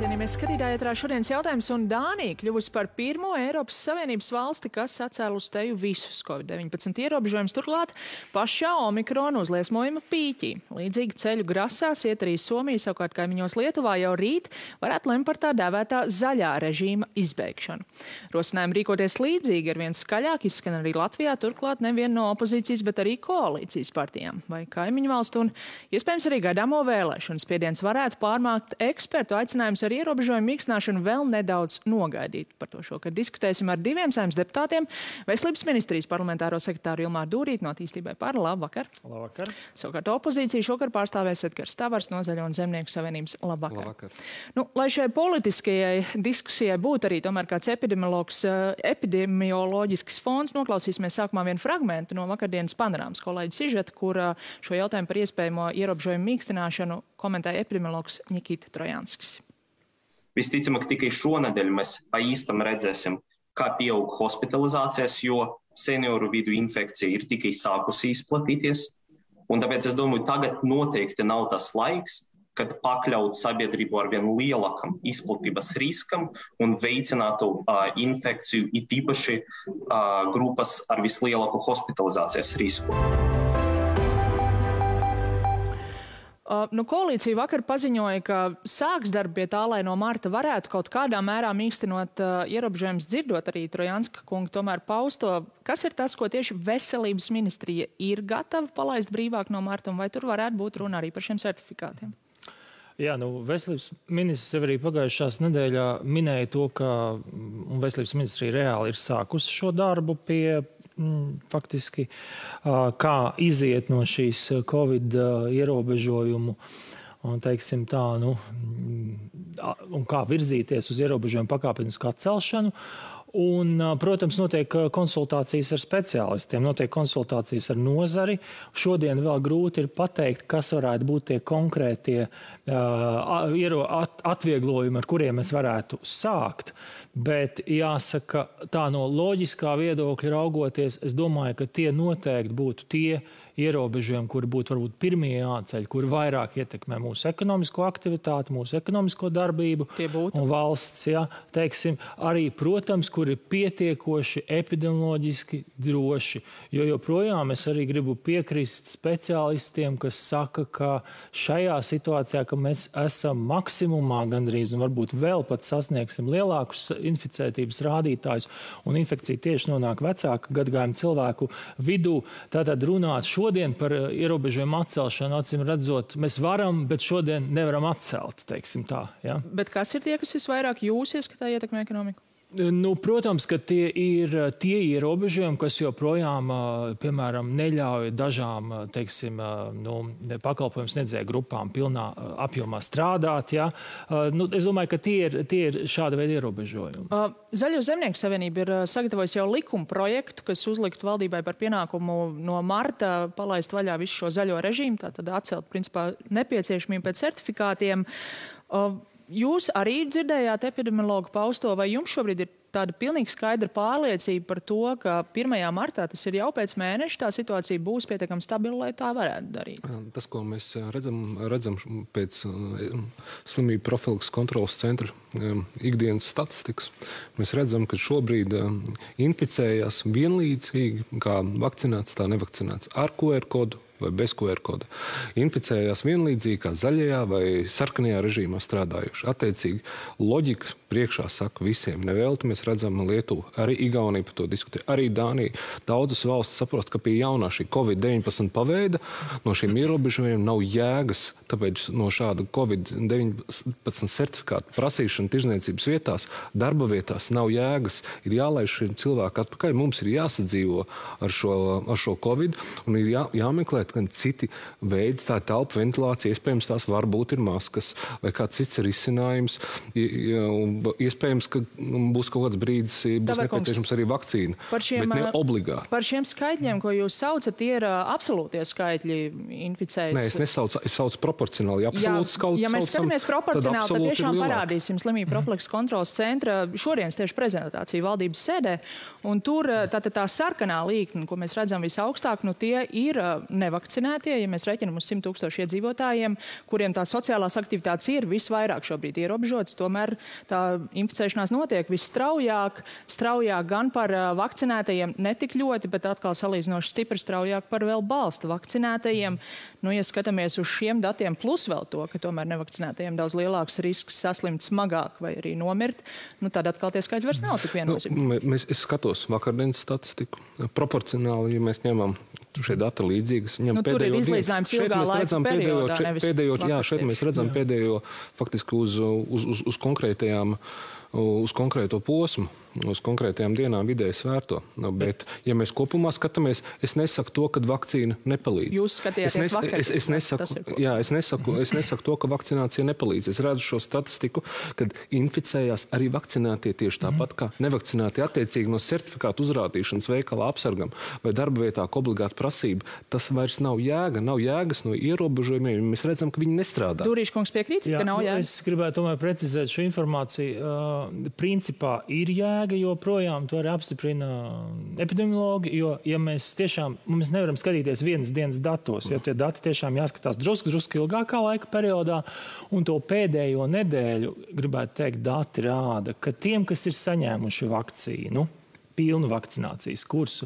Cienījamies skatītāji, ētrā šodienas jautājums, un Dānija kļuvusi par pirmo Eiropas Savienības valsti, kas atcēla uz teju visus COVID-19 ierobežojumus, turklāt pašā Omikrona uzliesmojuma pīķī. Līdzīgi ceļu grasās iet arī Somija, savukārt kaimiņos Lietuvā jau rīt varētu lemt par tā dēvētā zaļā režīma izbeigšanu. Rosinājumi rīkoties līdzīgi ar vien skaļāk izskan arī Latvijā, turklāt nevien no opozīcijas, bet arī koalīcijas partijām vai kaimiņu valstu, un iespējams arī gaidāmo vēlēšanu spiediens varētu pārmākt ekspertu aicinājums ar ierobežojumu mīkstināšanu vēl nedaudz nogaidīt. Par to šokar diskutēsim ar diviem Saeimas deputātiem. Veselības ministrijas parlamentāro sekretāru Ilmāru Dūrīti no Attīstībai par. Labvakar. Labvakar. Savukārt opozīcija šokar pārstāvēs Edgars Tavars no Zaļo un Zemnieku savienības. Labvakar. Labvakar. Lai šai politiskajai diskusijai būtu arī tomēr kāds epidemioloģisks fons, noklausīsimies sākumā vienu fragmentu no vakardienas panorāmas kolēģa sižeta, kur šo jautājumu par iespējamo ierobežojumu mīkstināšanu komentēja epidemiologs Nikita Trojanskis. Visticamāk, tikai šonedēļ mēs pa īstam redzēsim, kā pieaug hospitalizācijas, jo senioru vidu infekcija ir tikai sākusi izplatīties. Un tāpēc es domāju, tagad noteikti nav tas laiks, kad pakļaut sabiedrību ar vien lielākam izplatības riskam un veicinātu infekciju, it īpaši grupas ar vislielāku hospitalizācijas risku. Koalīcija vakar paziņoja, ka sāks darbu pie tā, lai no marta varētu kaut kādā mērā mīkstinot ierobežojumus, dzirdot arī Trojanska kungu tomēr pausto. Kas ir tas, ko tieši veselības ministrija ir gatava palaist brīvāk no marta, un vai tur varētu būt runa arī par šiem certifikātiem? Jā, veselības ministrs arī pagājušās nedēļā minēja to, ka veselības ministrija reāli ir sākusi šo darbu pie faktiski, kā iziet no šīs Covid ierobežojumu un, teiksim tā, un kā virzīties uz ierobežojumu pakāpenisku atcelšanu. Un, protams, notiek konsultācijas ar speciālistiem, notiek konsultācijas ar nozari. Šodien vēl grūti ir pateikt, kas varētu būt tie konkrētie atvieglojumi, ar kuriem mēs varētu sākt. Bet jāsaka, tā no loģiskā viedokļa raugoties, es domāju, ka tie noteikti būtu tie ierobežojumi, kuri būtu varbūt pirmie jāceļ, kuri vairāk ietekmē mūsu ekonomisko aktivitāti, mūsu ekonomisko darbību un valsts, teiksim, arī, protams, kuri ir pietiekoši epidemioloģiski droši. Jo joprojām es arī gribu piekrist speciālistiem, kas saka, ka šajā situācijā, ka mēs esam maksimumā gandrīz un varbūt vēl pat sasniegsim lielākus inficētības rādītājus un infekcija tieši nonāk vecāka gadagājuma cilvēku vidū, tātad runāt šodien par ierobežojumu atcelšanu, acīm redzot, mēs varam, bet šodien nevaram atcelt, teiksim tā. Ja? Bet kas ir tie, kas visvairāk jūs ieskatā ietekmē ekonomiku? Protams, ka tie ir tie ierobežojumi, kas joprojām, piemēram, neļauj dažām, teiksim, pakalpojumu sniedzēju grupām pilnā apjomā strādāt. Ja? Es domāju, ka tie ir šāda veida ierobežojumi. Zaļo Zemnieku savienība ir sagatavojusi jau likuma projektu, kas uzliktu valdībai par pienākumu no marta palaist vaļā visu šo zaļo režīmu, tātad atcelt, principā, nepieciešamību pēc certifikātiem. Jūs arī dzirdējāt epidemiologu pausto, vai jums šobrīd ir tāda pilnīgi skaidra pārliecība par to, ka 1. martā, tas ir jau pēc mēneša, tā situācija būs pietiekami stabila, lai tā varētu darīt? Tas, ko mēs redzam pēc slimību profilaks kontrolas centra ikdienas statistikas, mēs redzam, ka šobrīd inficējās vienlīdzīgi, kā vakcinēts, tā nevakcinēts, ar QR kodu vai bez QR koda. Inficējās vienlīdzīgi kā zaļajā vai sarkanajā režīmā strādājuši. Attiecīgi, loģika priekšā saka visiem. Nevelti mēs redzam Lietuvu, arī Igaunija par to diskutē, arī Dānija. Daudzas valstis saprost, ka pie jaunā šī COVID-19 paveida no šiem ierobežojumiem nav jēgas. Tāpēc no šāda COVID-19 certifikāta prasīšana tirzniecības vietās, darba vietās nav jēgas. Ir jālaiž šiem cilvēku atpakaļ. Mums ir jāsadzīvo ar šo COVID un ir jāmeklē gan citi veidi, tā telpa ventilācija, iespējams tās varbūt ir maskas vai kāds cits risinājums. iespējams, ka būs kaut kāds brīdis, būs nepieciešams arī vakcīna, bet ne obligāti. Par šiem skaitļiem, ko jūs saucat, tie ir absolūtie skaitļi inficējas? Nē, es saucu proporcionāli. Ja mēs skatāmies proporcionāli, tad tiešām parādīsim Slimību profilakses kontroles centra šodienas tieši prezentāciju valdības sēdē, un tur tā sarkanā līkne, ko mēs redzam visaugstāk, tie ir nevakcinētie, ja mēs reķinam uz 100 000 iedzīvotājiem, kuriem tā sociālās aktivitātes ir visvairāk šobrīd ierobežotas, tomēr tā inficēšanās notiek visstraujāk, gan par vakcinētajiem netik ļoti, bet atkal salīdzinoši stipri straujāk par vēl balsta vakcinētajiem. Ja skatāmies uz šiem datiem, plus vēl to, ka tomēr nevakcinētajiem daudz lielāks risks saslimt smagāk vai arī nomirt, tad atkal tie skaļi vairs nav tik viennozīmīgi. Es skatos vakardienas statistiku. Proporcionāli, ja mēs ņemam šie dati līdzīgas. Tur ir izlīdzinājums ilgā laika periodā, nevis vakarā. Šeit mēs redzam pēdējo faktiski uz konkrētajām, uz konkrēto posmu, uz konkrētajām dienām vidēji svērto. Bet, ja mēs kopumā skatāmies, es nesaku to, ka vakcīna nepalīdz. Jūs skatījāties vakar. Es nesaku to, ka vakcinācija nepalīdz. Es redzu šo statistiku, kad inficējās arī vakcinētie tieši tāpat kā nevakcinētie attiecīgi no certifikātu uzrādīšanas veikalā apsargam vai darba vietā, ka obligāta prasība. Tas vairs nav jēga, nav jēgas no ierobežojumiem. Mēs redzam, ka viņi nestrādā. Durīškungs piekrīt, ka nav jēga? Es gribētu tomēr precizēt šo informāciju. Principā ir jēga, jo projām to arī apstiprina epidemiologi, jo, ja mēs nevaram skatīties vienas dienas datos, jo tie dati tiešām jāskatās drusku ilgākā laika periodā, un to pēdējo nedēļu, gribētu teikt, dati rāda, ka tiem, kas ir saņēmuši vakcīnu, pilnu vakcinācijas kursu,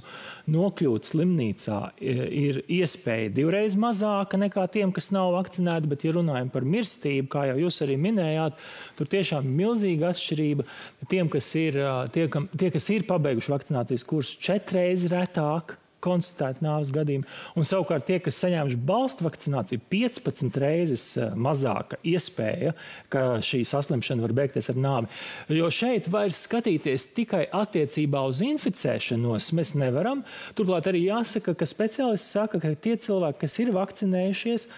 nokļūt slimnīcā ir iespēja 2 reizes mazāka nekā tiem, kas nav vakcinēti, bet, ja runājam par mirstību, kā jau jūs arī minējāt, tur tiešām milzīga atšķirība. Tiem, kas ir pabeiguši vakcinācijas kursu, 4 reizes retāk konstatēt nāves gadījumu, un savukārt tie, kas saņēmuši balstu vakcināciju, 15 reizes mazāka iespēja, ka šī saslimšana var beigties ar nāvi. Jo šeit vairs skatīties tikai attiecībā uz inficēšanos mēs nevaram. Turklāt arī jāsaka, ka speciālisti saka, ka tie cilvēki, kas ir vakcinējušies,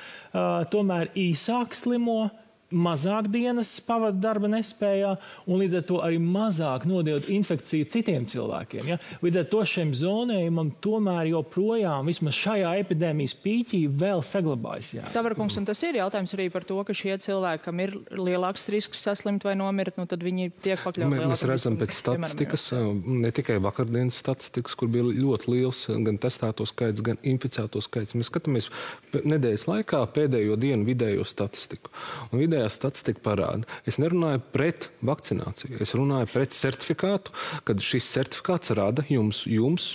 tomēr īsāk slimo, mazāk dienas pavada darba nespējā un līdz ar to arī mazāk nodod infekciju citiem cilvēkiem. Ja? Līdz ar to šiem zonējumam tomēr joprojām vismaz šajā epidēmijas pīķī vēl saglabājas. Tavarkungs, un tas ir jautājums arī par to, ka šie cilvēki, kam ir lielāks risks saslimt vai nomirt, tad viņi tiek pakļauti lielākam. Mēs redzam pēc statistikas, ne tikai vakardienas statistikas, kur bija ļoti liels gan testēto skaits, gan inficēto skaits. Mēs skatāmies nedēļas laikā pēdējo dienu vidējo statistiku. Un vidējā statistika parāda. Es nerunāju pret vakcināciju. Es runāju pret certifikātu, kad šis certifikāts rada jums,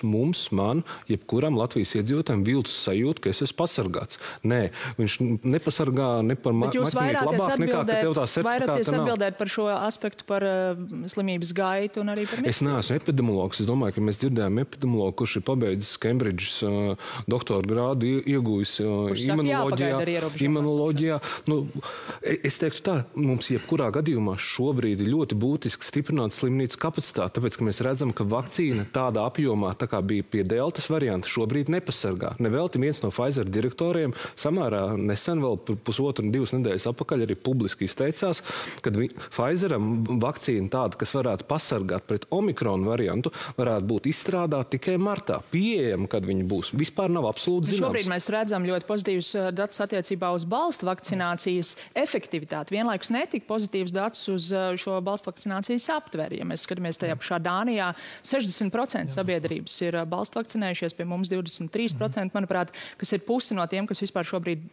mums, man, jebkuram Latvijas iedzīvotājiem viltus sajūtu, ka es esmu pasargāts. Nē, viņš nepasargā ne par maķinīt labāk nekā, ka tev tā certifikāta nav. Vairāties atbildēt par šo aspektu, par slimības gaitu un arī par Es neesmu epidemiologs. Es domāju, ka mēs dzirdējām epidemiologu, kurš ir pabeidzis Cambridges doktora grādu, iegūjis imunoloģijā. Es teiktu tā, mums jebkurā gadījumā šobrīd ir ļoti būtiski stiprināt slimnīcu kapacitāti, tāpēc, ka mēs redzam, ka vakcīna tādā apjomā, tā kā bija pie deltas varianta, šobrīd nepasargā. Nevelti viens no Pfizer direktoriem samērā nesen, vēl 1,5–2 nedēļas atpakaļ arī publiski izteicās, ka Pfizeram vakcīna tāda, kas varētu pasargāt pret Omikronu variantu, varētu būt izstrādāta tikai martā. Pieejama, kad viņi būs. Vispār nav absolūti zināms. Šobrīd mēs redzam ļoti pozitīvus datus attiecībā uz balstu vakcinācijas efektivitāti. Vienlaikus netika pozitīvs dats uz šo balstu vakcinācijas aptveri. Ja mēs skatāmies tajā pašā Dānijā, 60% sabiedrības ir balstu vakcinējušies, pie mums 23%, manuprāt, kas ir pusi no tiem, kas vispār šobrīd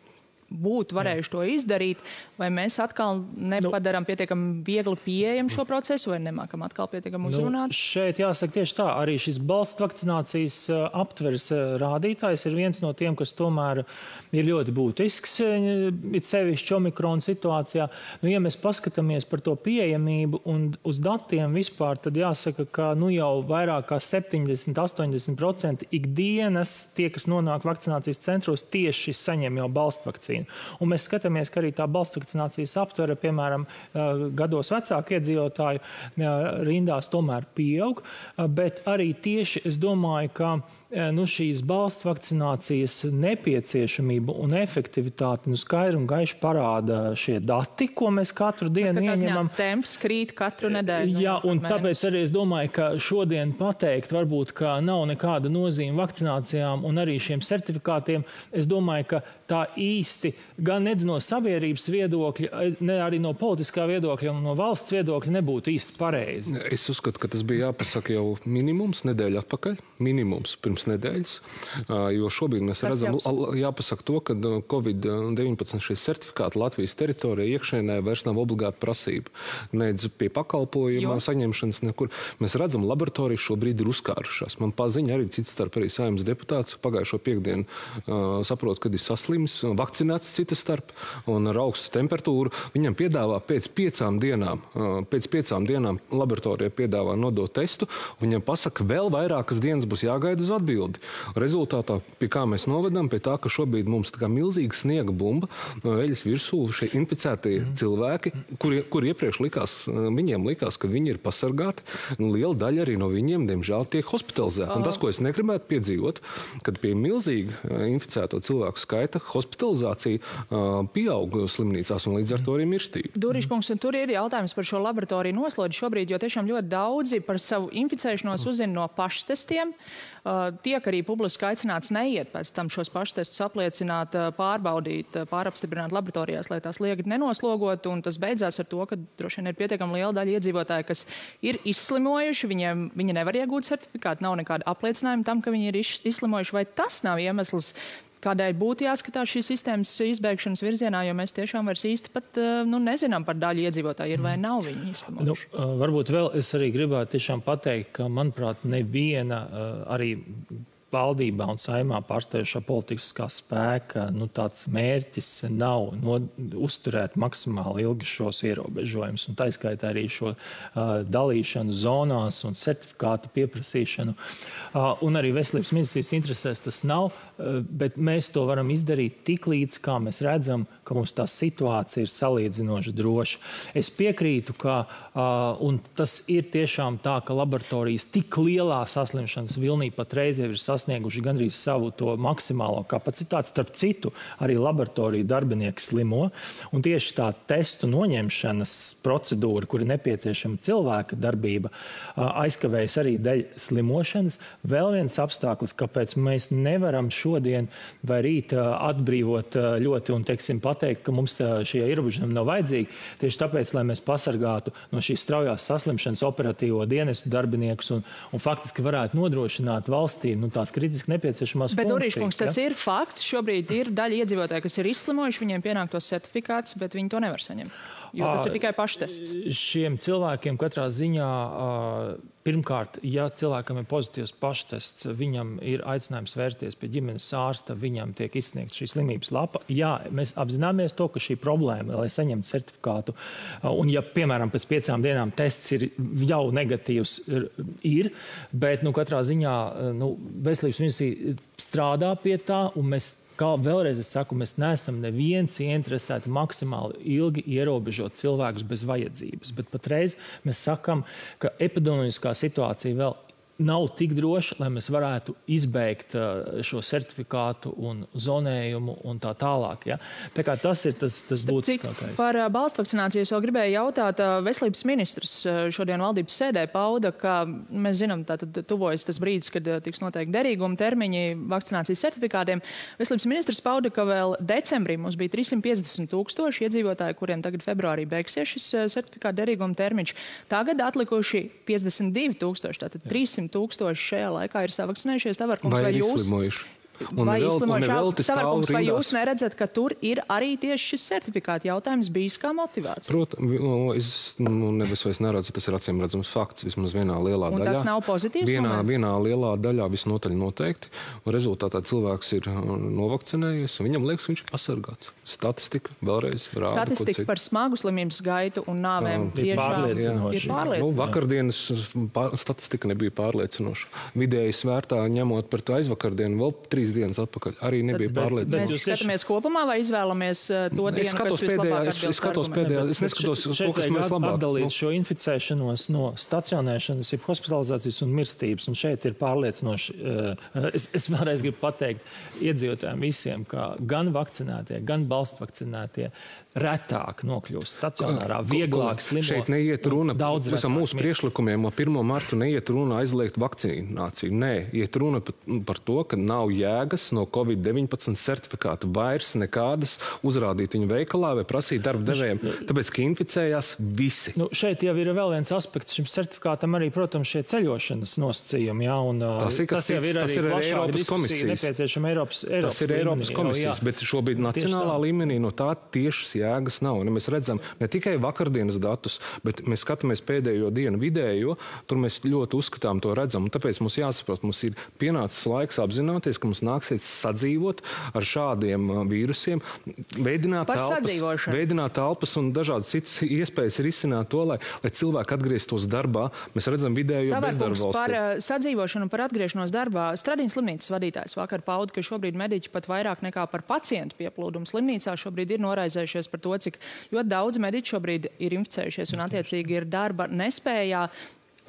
būtu varējuši to izdarīt, vai mēs atkal nepadarām pietiekami viegli pieejam šo procesu, vai nemākam atkal pietiekami uzrunāt? Šeit jāsaka tieši tā, arī šis balstu vakcinācijas aptveres rādītājs ir viens no tiem, kas tomēr ir ļoti būtisks, it sevišķi Omikrona situācijā. Ja mēs paskatāmies par to pieejamību un uz datiem vispār, tad jāsaka, ka jau vairāk kā 70–80% ikdienas tie, kas nonāk vakcinācijas centros, tieši saņem jau balstu vakcīnu. termīnu. Un mēs skatāmies, ka arī tā balstvakcinācijas aptvere, piemēram, gados vecāku iedzīvotāju rindās tomēr pieaug, bet arī tieši es domāju, ka šīs balstvakcinācijas nepieciešamība un efektivitāti skaidri un gaiši parāda šie dati, ko mēs katru dienu ieņemam. Temps krīt katru nedēļu. Jā, un tāpēc arī es domāju, ka šodien pateikt varbūt, ka nav nekāda nozīme vakcinācijām un arī šiem certifikātiem. Es domāju, ka tā īsti gan nedz no sabiedrības viedokļa, ne arī no politiskā viedokļa un no valsts viedokļa nebūtu īsti pareizi. Es uzskatu, ka tas bija jāpasaka jau minimums nedēļa atpakaļ, minimums pirms nedēļas, jo šobrīd mēs redzam, jāpasaka to, ka COVID-19 šie certifikāti Latvijas teritorijā iekšēnē vairs nav obligāta prasība. Nedz pie pakalpojuma saņemšanas nekur. Mēs redzam, laboratorijas šobrīd ir uzkārušās. Man paziņa arī cits starp arī Saeimas deputāts pagājušo piekdienu saprot, kad ir saslims, vakcinēts cita starp un ar augstu temperatūru. Viņam piedāvā pēc 5 dienām laboratorijā piedāvā nodot testu, un viņam pasaka, vēl vairākas dienas būs jāgaida uz atbildi. Rezultātā, pie kā mēs novedam, pie tā, ka šobrīd mums tā kā milzīga sniega bumba no eļas virsū šie inficētie cilvēki, kur iepriekš viņiem likās, ka viņi ir pasargāti, un liela daļa arī no viņiem, diemžēl, tiek hospitalizēti. Un tas, ko es negribētu piedzīvot, kad pie milzīga inficēto cilvēku skaita hospitalizācija pieaug slimnīcās un līdz ar to arī mirstība. Dūriškungs, un tur ir jautājums par šo laboratoriju noslodzi šobrīd, jo tiešām ļoti daudzi par savu inficēšanos uzzina no paštestiem. Tiek arī publiski aicināts neiet pēc tam šos paštestus apliecināt, pārbaudīt, pārapstiprināt laboratorijās, lai tās liegi nenoslogot, un tas beidzās ar to, ka droši vien ir pietiekami liela daļa iedzīvotāji, kas ir izslimojuši, viņi nevar iegūt certifikātu, nav nekāda apliecinājuma tam, ka viņi ir izslimojuši, vai tas nav iemesls, kādēļ būtu jāskatās šīs sistēmas izbeigšanas virzienā, jo mēs tiešām vairs īsti pat nezinām par daļu iedzīvotāju, ir vai nav viņi izslimojuši. Varbūt vēl es arī gribētu tiešām pateikt, ka, manuprāt, neviena arī valdībā un Saeimā pārstāvošā politiskā spēka tāds mērķis nav uzturēt maksimāli ilgi šos ierobežojumus. Un tā izskaitā arī šo dalīšanu zonās un certifikātu pieprasīšanu. Un arī veselības ministrijas interesēs tas nav, bet mēs to varam izdarīt tik līdz, kā mēs redzam, ka mums tā situācija ir salīdzinoši droša. Es piekrītu, ka, un tas ir tiešām tā, ka laboratorijas tik lielā saslimšanas vilnī patreiz jau ir sasnieguši gandrīz savu to maksimālo kapacitāti. Starp citu, arī laboratoriju darbinieki slimo, un tieši tā testu noņemšanas procedūra, kur ir nepieciešama cilvēka darbība, aizkavējas arī dēļ slimošanas. Vēl viens apstākļus, kāpēc mēs nevaram šodien vai rīt atbrīvot ļoti un, pateikt, ka mums šie ierobežojumi nav vajadzīgi, tieši tāpēc, lai mēs pasargātu no šīs straujās saslimšanas operatīvo dienestu darbiniekus un faktiski varētu nodrošināt valstī tās kritiski nepieciešamās funkcijas. Bet, Dūriškungs, tas ir fakts. Šobrīd ir daļa iedzīvotāji, kas ir izslimojuši, viņiem pienāk tos certifikāts, bet viņi to nevar saņemt. Jo tas ir tikai paštests. Šiem cilvēkiem katrā ziņā, pirmkārt, ja cilvēkam ir pozitīvs paštests, viņam ir aicinājums vērsties pie ģimenes ārsta, viņam tiek izsniegta šī slimības lapa. Jā, mēs apzināmies to, ka šī problēma, lai saņemtu certifikātu, un ja, piemēram, pēc 5 dienām tests ir jau negatīvs, bet, katrā ziņā, veselības ministrija strādā pie tā, un mēs vēlreiz es saku, mēs neesam neviens ieinteresēti maksimāli ilgi ierobežot cilvēkus bez vajadzības. Bet patreiz mēs sakam, ka epidemioloģiskā situācija vēl nav tik droša, lai mēs varētu izbeigt šo certifikātu un zonējumu un tā tālāk. Ja? Tā kā tas ir tas būtiskākais. Par balstvakcināciju es vēl gribēju jautāt. Veselības ministrs šodien valdības sēdē pauda, ka mēs zinām, tātad tuvojas tas brīdis, kad tiks noteikti derīguma termiņi vakcinācijas certifikātiem. Veselības ministrs pauda, ka vēl decembrī mums bija 350,000 iedzīvotāji, kuriem tagad februārī beigsies šis certifikāta derīguma termiņš. Tagad atlikuši 52,000, tātad 300,000 šajā laikā ir savakcinējušies. Tavarkungs, vai jūs... Tavarkungs, vai jūs neredzat, ka tur ir arī tieši šis certifikāta jautājums bijis kā motivācija? Protams, es nevis neredzu, tas ir acīm redzams fakts, vismaz vienā lielā daļā. Un tas nav pozitīvs moments? Vienā lielā daļā visnotaļ noteikti, un rezultātā cilvēks ir novakcinējies, un viņam liekas, viņš ir pasargāts. Statistika vēlreiz rāda. Statistika par smagu slimības gaitu un nāvēm ir pārliecinoša. Vakardienas statistika nebija pārliecinoša. Vidēji svērtā, ņemot par to aizvakardienu, vēl 3 dienas atpakaļ. Arī nebija pārliecināts. Mēs skatāmies kopumā vai izvēlamies to dienu, kas vislabāk atbilst? Es skatos pēdējā, es neskatos to, kas mēs labāk. Atdalīt šo inficēšanos no stacionēšanas, ir hospitalizācijas un mirstības, un šeit ir pārliecinoši. Es vēlreiz gribu pateikt iedzīvotājiem visiem, ka gan vakcinētie, gan balstvakcinētie retāk nokļūst stacionārā, vieglāk slimo. Šeit neiet runa visam mūsu priekšlikumiem, 1. martu neiet runa aizliegt vakcināciju. Nē, iet runa par to, ka nav jēgas no COVID-19 certifikātu vairs nekādas uzrādīt viņu veikalā vai prasīt darba devējiem, tāpēc, ka inficējās visi. Šeit jau ir vēl viens aspekts šim certifikātam arī, protams, šie ceļošanas nosacījumi, jā, un tas jau ir arī Eiropas komisijas. Nepieciešama Eiropas tas ir Eiropas komisijas, bet šobrīd nacionālā līmenī no tā tiešas jēgas nav. Un mēs redzam ne tikai vakardienas datus, bet mēs skatāmies pēdējo dienu vidējo, tur mēs ļoti uzskatām to redzam. Un tāpēc mums jāsaprot, mums ir pienācis laiks apzināties, ka mums nāksies sadzīvot ar šādiem vīrusiem, veidināt telpas un dažādas citas iespējas risināt to, lai cilvēki atgrieztos darbā. Mēs redzam vidējo bezdarba valstī. Par sadzīvošanu un par atgriešanos darbā. Stradīnas slimnīcas vadītājs vakar pauda, ka šobrīd mediķi pat vairāk nekā par pacientu pieplūdumu slimnīcā šobrīd ir noraizējušies par to, cik ļoti daudz mediķu šobrīd ir inficējušies un attiecīgi ir darba nespējā.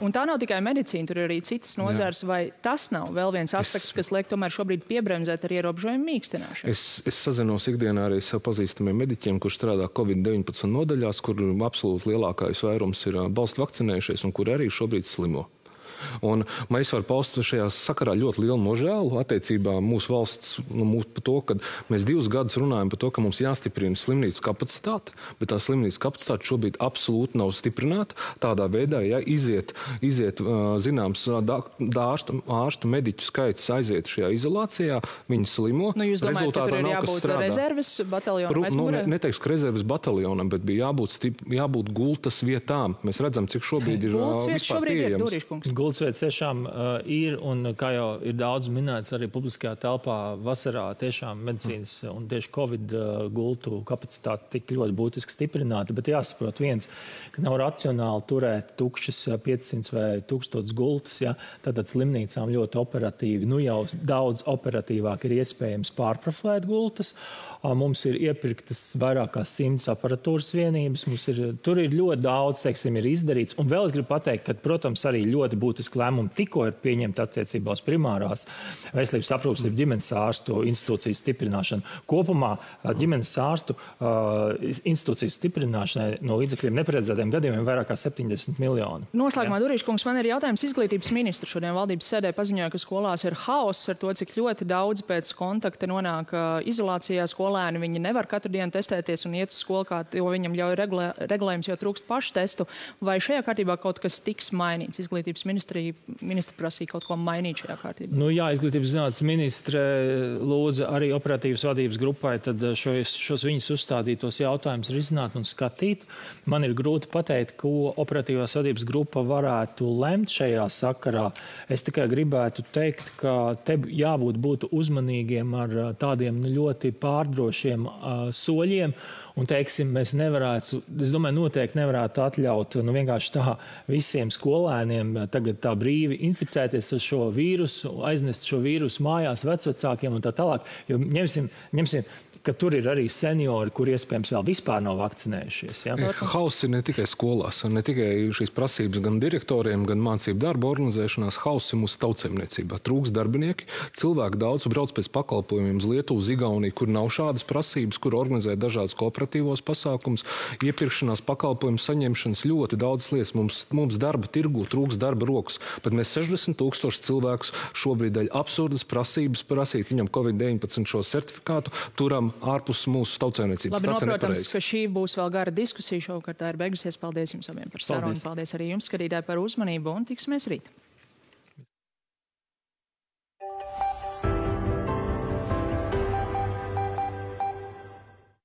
Un tā nav tikai medicīna, tur ir arī citas nozars, vai tas nav vēl viens aspekts, kas liek tomēr šobrīd piebremzēt ar ierobežojumu mīkstināšanu? Es sazinos ikdienā arī sev pazīstamiem mediķiem, kurš strādā COVID-19 nodaļās, kur absolūti lielākais vairums ir balstu vakcinējušies un kur arī šobrīd slimo. Un mēs varam paust šajā sakarā ļoti lielu nožēlu attiecībā mūsu valsts par to, ka mēs 2 gadus runājam par to, ka mums jāstiprina slimnīcu kapacitāte, bet tā slimnīcu kapacitāte šobrīd absolūti nav stiprināta. Tādā veidā, ja iziet zināms ārstu mediķu skaits aiziet šajā izolācijā, viņi slimo. Jūs domājat, ka tur ir jābūt rezerves bataljonam aizmūrē? Neteikšu, ka rezerves bataljonam, bet bija jābūt gultas vietām. Mēs redzam, cik šobrīd ir vispār pieejams. Gultsvietas tiešām ir, un kā jau ir daudz minēts arī publiskajā telpā, vasarā tiešām medicīnas un tieši Covid gultu kapacitāte tik ļoti būtiski stiprināta, bet jāsaprot viens, ka nav racionāli turēt tukšas 500 vai 1000 gultas, ja, tad slimnīcām ļoti operatīvi, jau daudz operatīvāk ir iespējams pārprofilēt gultas. Mums ir iepirktas vairāk kā 100 aparatūras vienības, tur ir ļoti daudz, teiksim, ir izdarīts, un vēl es gribu pateikt, ka, protams, arī ļoti būtiski lēmumi tikko ir pieņemti attiecībā uz primārās veselības aprūpes ģimenes ārstu institūcijas stiprināšanu. Kopumā ģimenes ārstu institūcijas stiprināšanai no līdzekļiem neparedzētiem gadījumiem vairāk kā 70 miljoni. Noslēgumā, Durīškungs, man ir jautājums izglītības ministru. Šodien valdības sēdē paziņoja, ka skolās ir haoss ar to, cik ļoti daudz pēc kontakta nonāk izolācijā. Skolēni viņi nevar katru dienu testēties un iet uz skolu, kā to viņam ļauj regulējums, jo trūkst paštestu. Vai šajā kārtībā kaut kas tiks mainīts? Izglītības ministra prasīja kaut ko mainīt šajā kārtībā. Jā, izglītības zinātnes ministre lūdza arī operatīvas vadības grupai tad šos viņas uzstādītos jautājumus risināt un skatīt. Man ir grūti pateikt, ko operatīvās vadības grupa varētu lemt šajā sakarā. Es tikai gribētu teikt, ka te jābūt uzmanīgiem ar tādiem ļoti pārdrošiem soļiem. Un, teiksim, mēs nevarētu, es domāju, noteikti nevarētu atļaut vienkārši tā visiem skolēniem tagad tā brīvi inficēties ar šo vīrusu, aiznest šo vīrusu mājās vecvecākiem un tā tālāk. Jo ņemsim, ka tur ir arī seniori, kur iespējams vēl vispār nav vakcinējušies. Ja? Hauss ir ne tikai skolās, ne tikai šīs prasības gan direktoriem, gan mācību darba organizēšanās. Hauss ir mūsu tautsēmniecībā. Trūks darbinieki, cilvēki daudz brauc pēc pakalpojumiem uz Lietuvu, uz Igauniju, kur nav šādas prasības, kur organizē dažādas kooperatīvos pasākums, iepirkšanās, pakalpojumu saņemšanas, ļoti daudz lietas. Mums darba tirgu trūks darba rokas. Pat mēs 60 000 cilvēkus šobrīd dēļ absurdas prasības prasīt viņam COVID-19 šo certifikātu turam ārpus mūsu tautsēmniecības. Labi, protams, ka šī būs vēl gara diskusija šovakar. Tā ir beigusies. Paldies jums abiem par sarunu. Paldies arī jums, skatītāji, par uzmanību un tiksimies rīt.